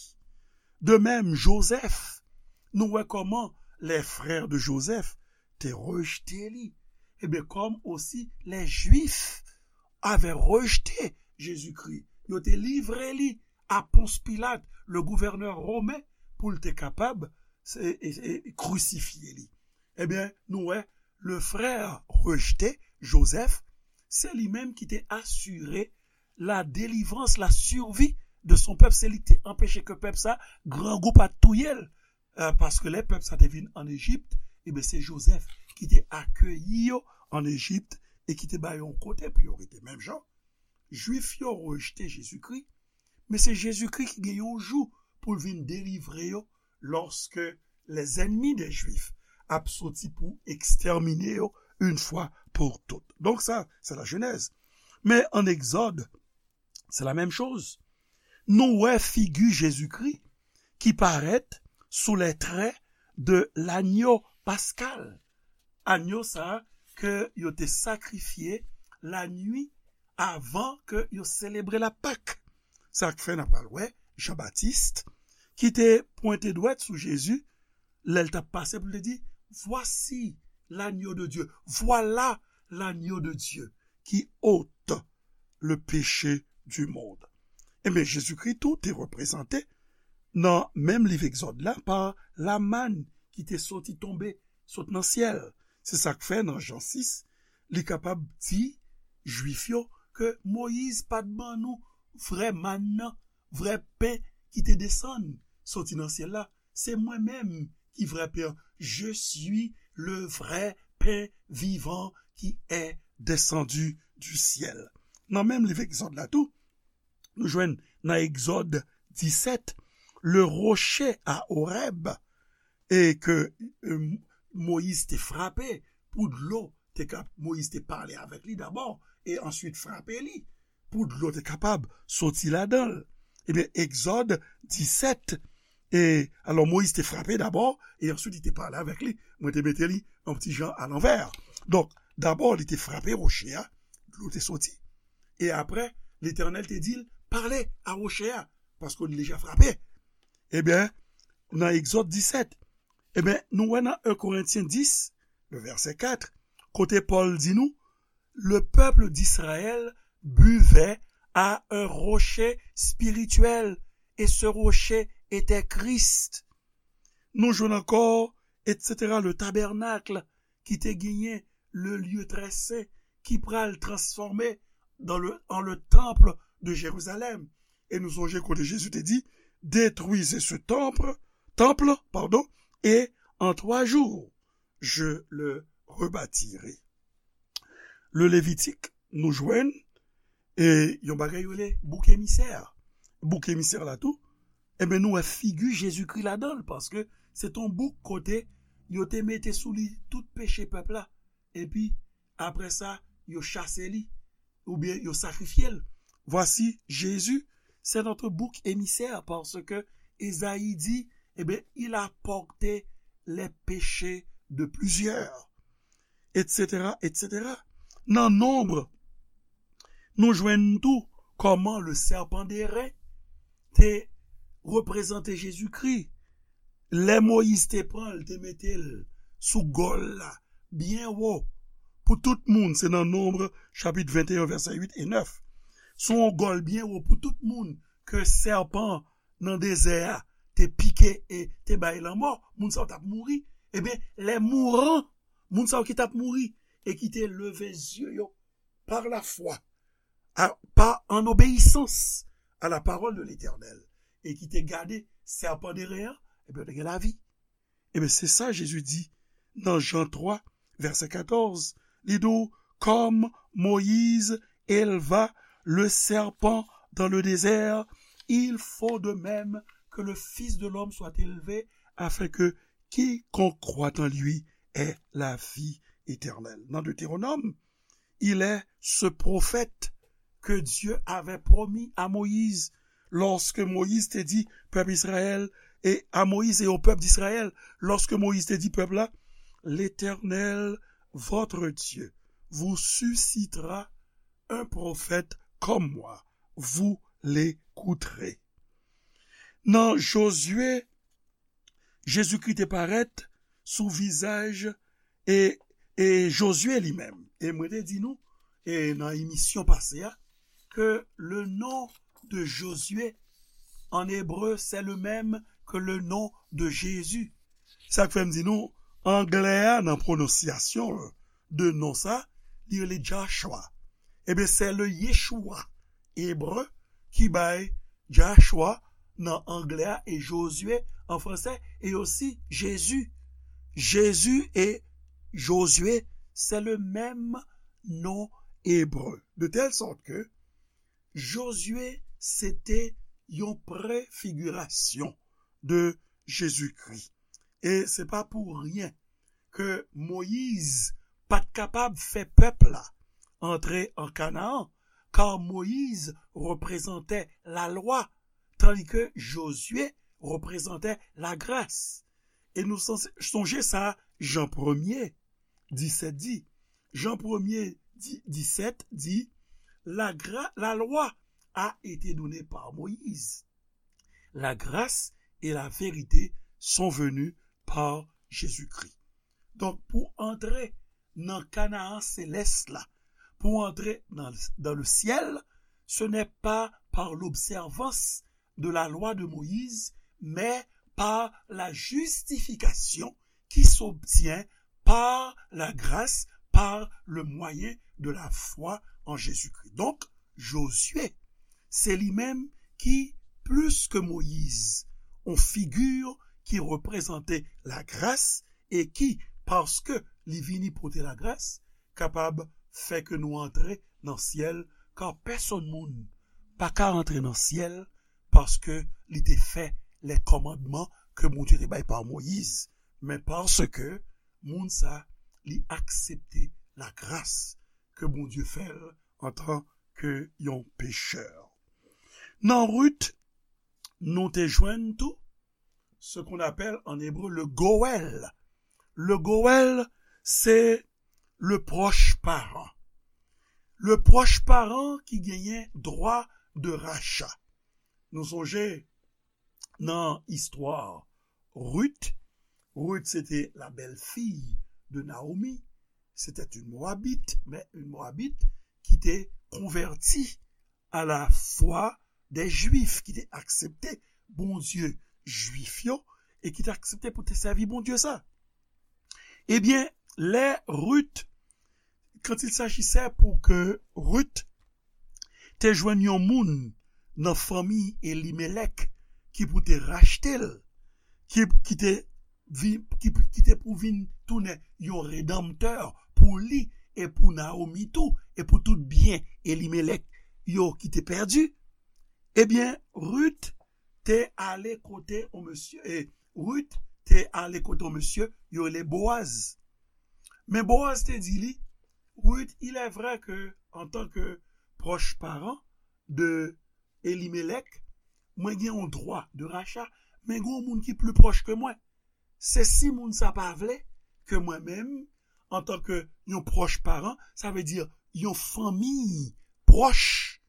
De même, Joseph, nou wè kòman les frères de Joseph te rejte li. Ebyen, comme aussi les Juifs avaient rejeté Jésus-Christ, yo te livre li a Ponce Pilate, le gouverneur romain, pou l te kapab se, e, e, krisifye li. Ebyen, nou wè, le frère rejeté, Joseph, se li menm ki te asire la délivrance, la survie de son peuple. Se li ki te anpeche ke pèp sa, grangou pa t touye l. Euh, paske lè pèp sa te vin ann Ejip, ebyen, se Joseph ki te akeyi yo ann Ejip e ki te ba yo yon kote pou yo rete. Menm jan, Jwif yo rejte Jezikri, men se Jezikri ki gen yon jou pou l vin delivre yo, lòske les ennemis des Juifs ap soti pou ekstèmine yo une fois pour toutes. Donk sa, se la Genèse. Men ann Egzòd, se la menm choz. Nou wè figi Jezikri ki parèt sou les traits de l'agneau pascal. Agneau sa ke yo te sakrifye lannuit avan ke yo selebre la Pâque. Sa k fè n ap pral wè Jan Batis ki te pwente dwèt sou Jezi lè l t ap pase pou l te di, Voici l'agneau de Dieu, voilà l'agneau de Dieu qui ôte le péché du monde. Ebyen, Jezikri tou te reprezante nan menm liv Egzòd la pa lamann ki te soti tonbe sot nan syèl. Se sa k fè nan Jan sis, li kapab di Jwif yo ke Moyiz pa t ban nou vrè mann nan, vrè pen ki te desann soti nan syèl la. Se mwen menm ki vrè pen an. Je suis le vrai pain vivant qui est descendu du ciel. Nan menm liv Egzòd la tou, nou jwenn nan Egzòd disèt, le rocher à Horeb, e ke euh, Moyiz te frape pou dlo te ka, Moyiz te pale avèk li dabò e answit frape li pou dlo te kapab soti ladan l. Ebyen, Egzòd disèt, e alò Moyiz te frape dabò e answit li te pale avèk li. Mwen te mete li yon ti jan alanvè. Donk, dabò li te frape woche a, dlo te soti. E apre, Letènèl te di l, pale a woche a, paske li deja frape. Ebyen, nan Egzòd disèt, ebyen, nou wè nan en Korentyen dis, le vèsè kat, kote Pòl di nou, le peuple d'Israël buvait à un rocher spirituel, et ce rocher était Christ. Nou jwenn ankò, et cetera, le tabernacle ki te genyen le lieu très saint ki pral transfòme dans le, en le temple de Jérusalem. E nou sonje kote Jezi te di, détruisez ce temple, temple, pardon, et en trois jours, je le rebâtirai. Le Levitik, nou jwenn e yon bagay yo rele bouk emisè. Bouk emisè la tou, ebyen nou wè figi Jezikri ladan l, paske se t on bouk kote yo te mete sou li tout peche pèp la. Epi, apre sa, yo chase li, oubyen yo sakrifye l. Voici Jésus, c'est notre bouc émissaire, parce que Esaïe dit, eh bien, il a porté les péchés de plusieurs, et cetera, et cetera. Nan Nonb, nou jwenn tou kòman le serpent d'airain te reprezante Jezikri. Lè Moyiz te pran l, te mete l sou gòl la, byen wo, pou tout moun, se nan Nonb, chapit venteyen, vèsè uit e nèf. Sou yon gòl byen wo pou tout moun ke sèpan nan dezè a te pike e te bay lanmò, moun sa yo t ap mouri. Ebyen, les mourants, moun sa yo ki t ap mouri e ki te leve zye yo par la foi, à, pas en obéissance à la parole de l'Éternel, e ki te gade sèpan d'airain an, ebyen, yo te gen lavi. Ebyen, se sa Jezi di nan Jan twa, vèsè katòz. Li di w, comme Moïse éleva le serpent dans le désert, il faut de même que le Fils de l'homme soit élevé, afin que quiconque croit en lui ait la vie éternelle. Nan Deutéronome, il est ce prophète que Dieu avait promis à Moïse lorsque Moïse te di pèp Israël, e a Moïse e o pèp d'Israël, lorsque Moïse te di pèp la, l'Éternel, votre Dieu, vous suscitera un prophète comme moi, vous l'écouterez. Nan Jozye, Jezikri te parèt sou vizaj e, e Jozye li menm. E mwen te di nou, e nan emisyon pase a, ke le nom de Josué en hébreu, c'est le même que le nom de Jésus. Sa k fè m di nou, anglè a nan pwononsyasyon de non sa, li rele Joshua. Ebyen, se le Yeshua ebre ki bay Joshua nan anglè a e Josué an fransè e osi Jezi. Jezi e Josué, se le menm non ebre. De tèl sòt ke Josué se te yon prefigirasyon de Jezikri. E se pa pou ryen ke Moyiz pa t kapab fè pèp la antre an Kanaan, ka Moyiz reprezante lalwa, tandi ke Jozye reprezante lagras. E nou sonje sa Jan premye disèt di. Jan premye di, disèt di, la, gra, la loi a été donnée par Moïse. La grâce et la vérité sont venues par Jésus-Christ. Donk, pou antre nan Kanaan selès la, pou antre nan, dans le ciel, ce n'est pas par l'observance de la loi de Moïse, mais par la justification qui s'obtient par la grâce, par le moyen de la foi en Jésus-Christ. Donk, Jozye, se li menm ki, plis ke Moyiz, yon figi ki reprezante lagras e ki, paske li vini pote lagras, kapab fè ke nou antre nan syèl, kar pèsonn moun pa ka antre nan syèl paske li te fè lè kòmandman ke Bondye te bay pa Moyiz, men paske moun sa li aksepte lagras ke Bondye fè l antan ke yon pechè. Nan Rit, nou te jwenn tou ce qu'on appelle en hébreu le Goël. Le Goël, se le proche parent. Le proche parent ki genyen dwa de racha. Nou sonje nan istwa Rit. Rit, c'était la belle-fille de Naomi. C'était une Moabite, mais une Moabite qui était convertie à la foi des Juifs, ki te aksepte Bondye Jwif yo, e ki te aksepte pou te sèvi Bondye sa. Ebyen, lè Rit, quand il s'agissait pou ke Rit te jwenn yon moun nan fanmi Elimelèk ki pou te rachte l, ki, ki te vi-, ki, ki te pou vin tounen yon redanmtè pou li e pou Naomi tou, e pou tout byen Elimelèk yo ki te pèdi, ebyen, Rit te ale kote yon mesye, e Rit te ale kote yon mesye yo rele Boaz. Men Boaz te di li, Rit, il est vrai que, en tant que proche parent de Elimelèk, mwen gen yon dwa de racha, men gen yon moun ki pli pwòch ke mwen. Se si moun sa pa vle ke mwen menm, antan ke yon pwòch paran, sa vle di yon fanmi pwòch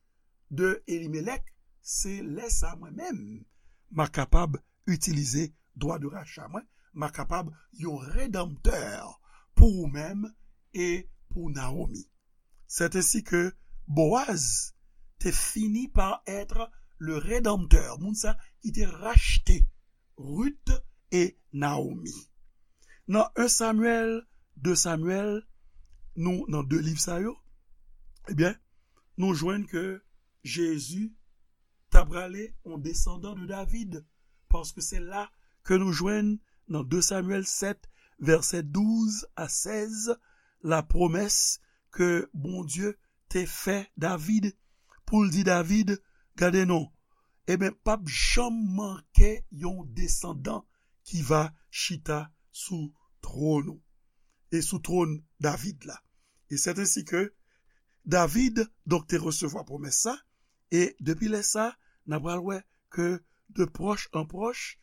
de Elimelèk, se lè sa mwen menm, m a kapab itilize dwa de racha mwen, m a kapab yon redanmtè pou ou menm e pou Naomi. C'est ainsi que Boaz te fini par être le rédempteur, moun sa ki te rachte Rit e Naomi. Nan en Samyèl, de Samyèl, nou nan de liv sa yo, ebyen, nou jwenn ke Jezi ta prale yon desandan de David, paske se la ke nou jwenn nan de Samyèl sèt, vèsè douz a sèz, la pwomès ke Bondye te fè David, pou l di David, gade non, ebyen, p ap janm manke yon desandan ki va chita sou twòn ou, e sou twòn David la. E c'est ainsi que David, donk, te resevwa pwomès sa, e depi lè sa, n a pral wè ke de pwòch an pwòch,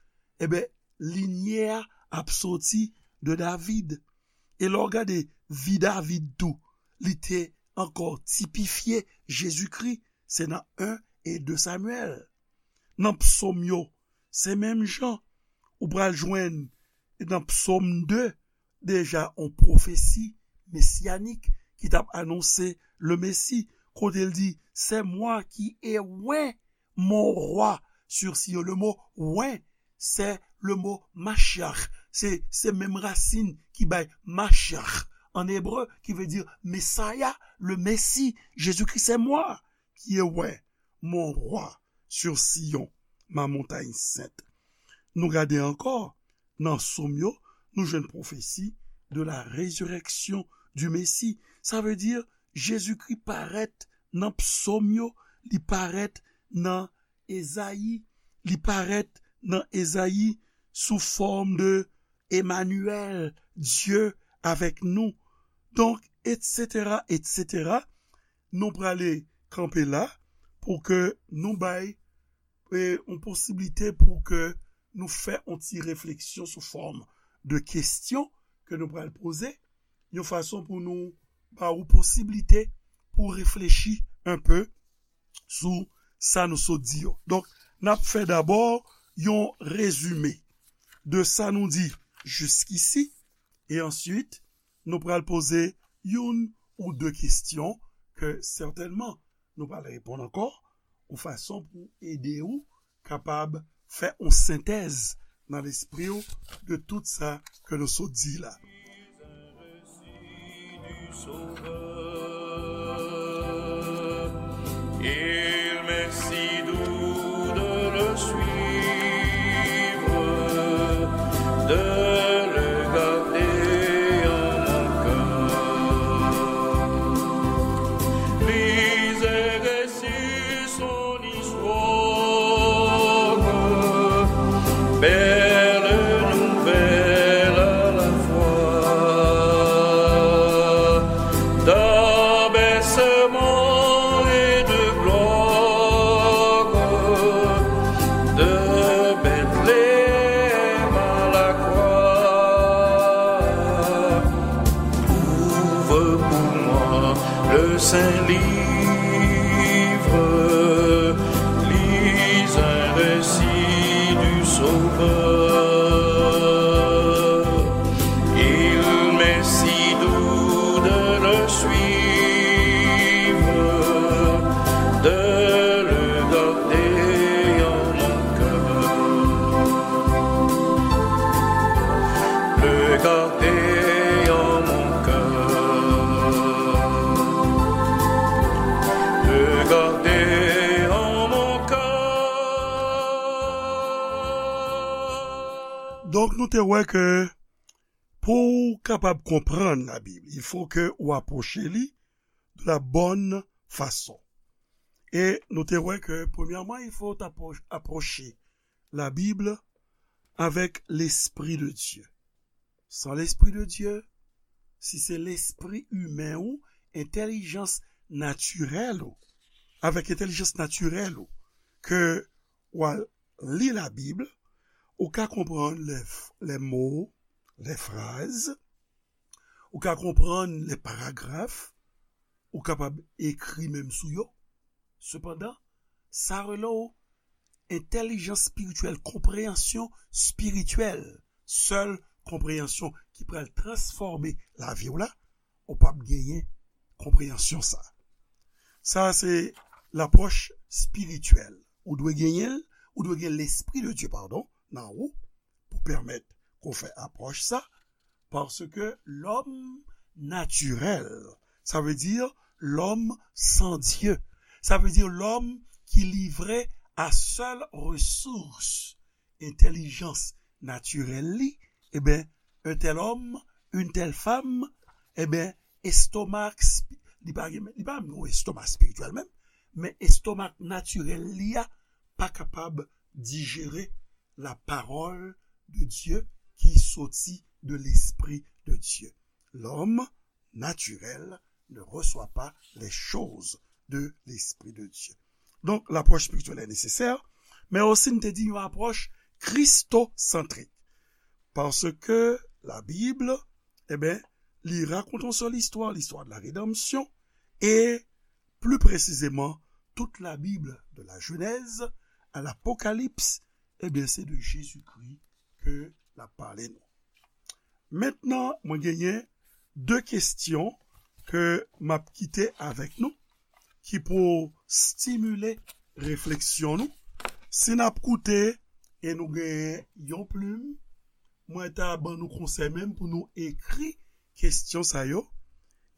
ebyen, linyè a ap soti de David. E lè w gade vi David tou, li te ankò tipifye Jezikri, se nan en e de Samyèl. Nan psòm yo, se menm jan, ou pral jwenn nan psòm de, deja yon pwofesi mesyanik ki t ap anonse le Messie, kote l di, c'est moi qui ai oint mon roi sur Sion. Le mo oint, c'est le mo Mashiach. Se, se menm rasin ki bay Mashiach an ebre, ki vle di Messiah, le Messie. Jésus-Christ, c'est moi qui ai oint mon roi sur Sion, ma montagne sainte. Nou gade ankò, nan Sòm yo, nou jwenn pwofesi de la résurrection du Messie. Sa vle di, Jezikri parèt nan Psòm yo, li parèt nan Ezayi, li parèt nan Ezayi sou fòm de Emmanuel, Dieu avec nous. Donk, et cetera, et cetera. Nou prale kanpe la pou ke nou bay, e, yon posiblite pou ke nou fè yon ti refleksyon sou fòm de kesyon ke nou pral poze, yon fason pou nou ba ou posiblite pou reflechi un peu sou sa nou sot di yo. Donk, n ap fè dabò yon rezime de sa nou di jiskisi, e answit, nou pral poze youn ou de kesyon ke sètènman nou pral reponn ankò, yon fason pou ede ou kapab fè yon sentèz nan lespri w de tout sa ke nou sot di la. Il m'est si doux de le suivre, de le garder en mon et de gloire de Bethléem à la croix. Ouvre pour moi le saint livre, lis un récit du Sauveur. Il m'est si doux de le suivre, de le garder en mon cœur, le garder en mon cœur, le garder en mon cœur. Donk, nou te wè ke pou w kapab konprann Labib, il faut que ou apwoche li de la bonne façon. E nou te wè ke, premyèman, il faut apwo- apwoche Labib avèk Lespri de Dye. San Lespri de Dye, si se lespri imen ou, entèlijans natirèl ou, avèk entèlijans natirèl ou, ke w al li Labib, ou ka konprann les, les mots, les phrases, ou ka konprann les paragraphes, ou kapab ekri menm sou yo. Sepandan, sa rele w entèlijans espirityèl, konpreyansyon espirityèl, sèl konpreyansyon ki pral transfòme lavi w la, ou p ap genyen konpreyansyon sa. Sa se lapwòch espirityèl. Ou dwe genyen l, ou dwe gen Lespri de Dye, padon, nan ou, pou pèmèt ke w fè apwòch sa, paske lòm natirèl, sa vle di lòm san Dye, sa vle di lòm ki livre a sèl resous entèlijans natirèl li, ebyen, un tel homme, une telle femme, ebyen, estomak, spi- li pa gen, li pa menm yon estomak espirityèl menm, men estomak natirèl li a pa kapab dijere la parole de Dieu qui sortit de l'Esprit de Dieu. L'homme naturel ne reçoit pas les choses de l'Esprit de Dieu. Donk, lapwòch espirityèl è nesesè, men osi n te di yon apwòch kristosantrik. Paske Labib, ebyen, li rakonte yon sèl istwa, l'histoire de la rédemption, e pli presizeman, tout Labib, de la Genèse à l'Apocalypse, ebyen, se de Jezikri ke l ap pale nou. Mentnan, mwen genyen de kesyon ke m ap kite avèk nou, ki pou stimile refleksyon nou. Si n ap koute e nou genyen yon plim, mwen ta ban nou konsèy menm pou nou ekri kesyon sa yo.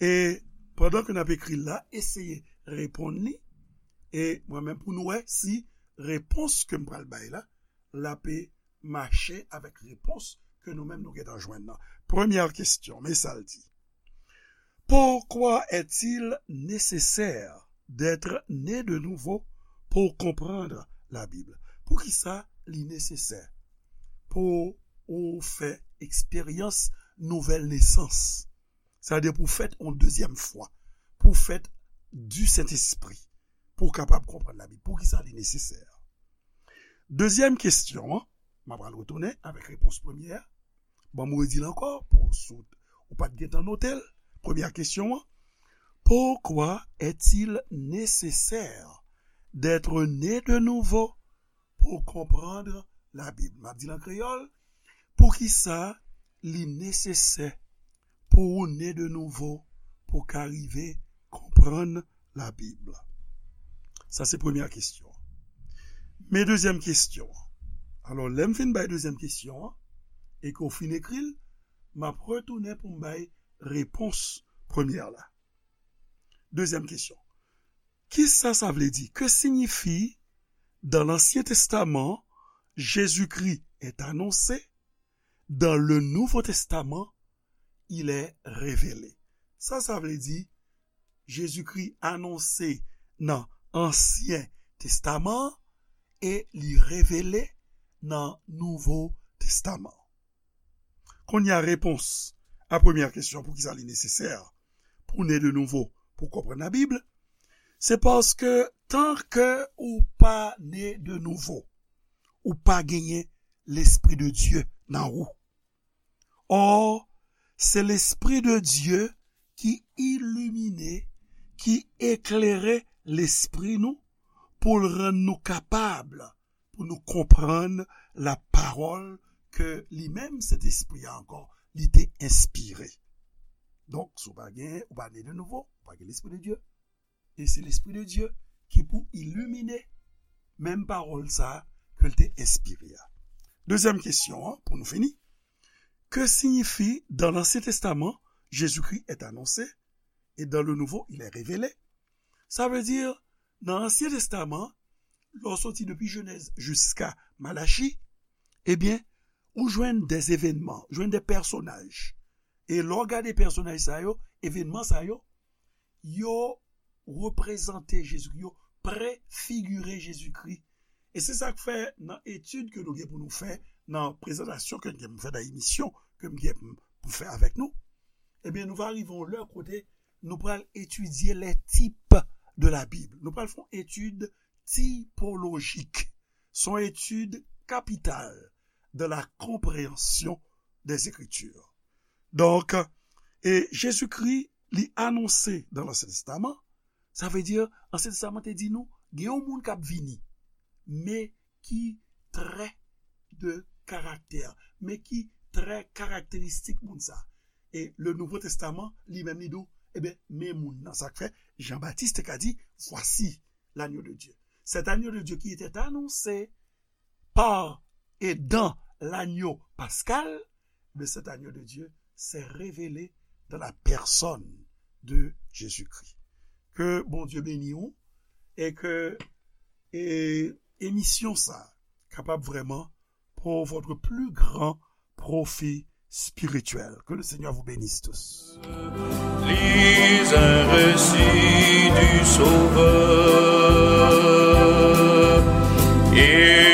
E pandan ke n ap ekri l la, eseye reponn li. E mwen menm pou nou wè si repons ke m pral bay la, l ap mache avèk repons ke nou menm nou gentan jwenn nan. Premyè kesyon, men sa l di. Pourquoi est-il nécessaire d'être né de nouveau pour comprendre la Bible? Poukisa li nesesè pou ou fè eksperyans nouvèl nesans? Sa vle di pou fèt yon dezyèm fwa, pou fèt du Saint-Esprit, pou w kapab konprann Labib. Poukisa li nesesè? Dezyèm kesyon an, m ap al retounen avèk repons premyè a. Ban m redi l ankò, pou si w pa t gentan note l. Premyè kesyon an, pourquoi est-il nécessaire d'être né de nouveau pour comprendre la Bible? M ap di l an kreyòl, poukisa li nesesè pou ou ne de nouvo pou w ka rive konprann Labib? Sa se premyè kesyon. Men dezyèm kesyon. Alò, lè m fin bay dezyèm kesyon an, e ke w fin ekri l, m ap retounen pou m bay repons premyè la. Dezyèm kesyon. Kisa sa vle di? Que signifie, dans l'Ancien Testament, Jésus-Christ est annoncé, dans le Nouveau Testament, il est révélé? Sa sa vle di, Jezikri anonse nan Ansyen Testaman an e li revele nan Nouvo Testaman an. Kounye a, repons a premyè kesyon, poukisa li nesesè pou ne de nouvo pou konprann Labib, se paske tan ke ou pa ne de nouvo, ou pa genyen Lespri de Dye nan ou. Or, se Lespri de Dye ki ilimine, ki eklere lespri nou pou l rann nou kapab pou nou konprann lapawòl ke li menm, Sentespri a ankò, li te enspire. Donk, si w pa gen, ou pa ne de nouvo, ou pa gen Lespri de Dye. E se Lespri de Dye ki pou ilimine menm pawòl sa a ke l te enspire a. Dezyèm kesyon an, pou nou fini. Que signifie dans l'Ancien Testament, Jésus-Christ est annoncé et dans le Nouveau, il est révélé? Sa vle di, nan Ansyen Testaman, lè w soti depi Jenèz jiska Malachi, ebyen, ou jwenn de evènman, jwenn de pèsonaj. E lè w gade pèsonaj sa yo, evènman sa yo, yo reprezante Jezikri, yo prefigire Jezikri. E se sa k fè nan etid ke nou gen pou nou fè, nan prezantasyon ke n gen pou fè, nan emisyon ke m gen pou fè avèk nou, ebyen, nou va rive yon lè kote nou pral etidye les types de la Bible. Nou pral fè yon etid tipolojik. Se yon etid kapital de la compréhension des Écritures. Donk, e Jezikri, li anonse dan Lansyen Testaman, sa vle di, Ansyen Testaman te di nou, gen yon moun k ap vini, men ki trè de karaktè, men ki trè karakteristik moun sa. E le Nouveau Testament, li menm, li di w, ebyen, men moun nan. Sa k fè, Jan Batis te ka di, Voici l'agneau de Dieu. Cet agneau de Dieu qui était annoncé par et dans l'agneau pascal, mais cet agneau de Dieu s'est révélé dans la personne de Jésus-Christ. Ke Bondye beni w e ke e, emisyon sa kapab vrèman pour votre plus grand profit spirituel. Que le Seigneur vous bénisse tous. Lis un récit du Sauveur et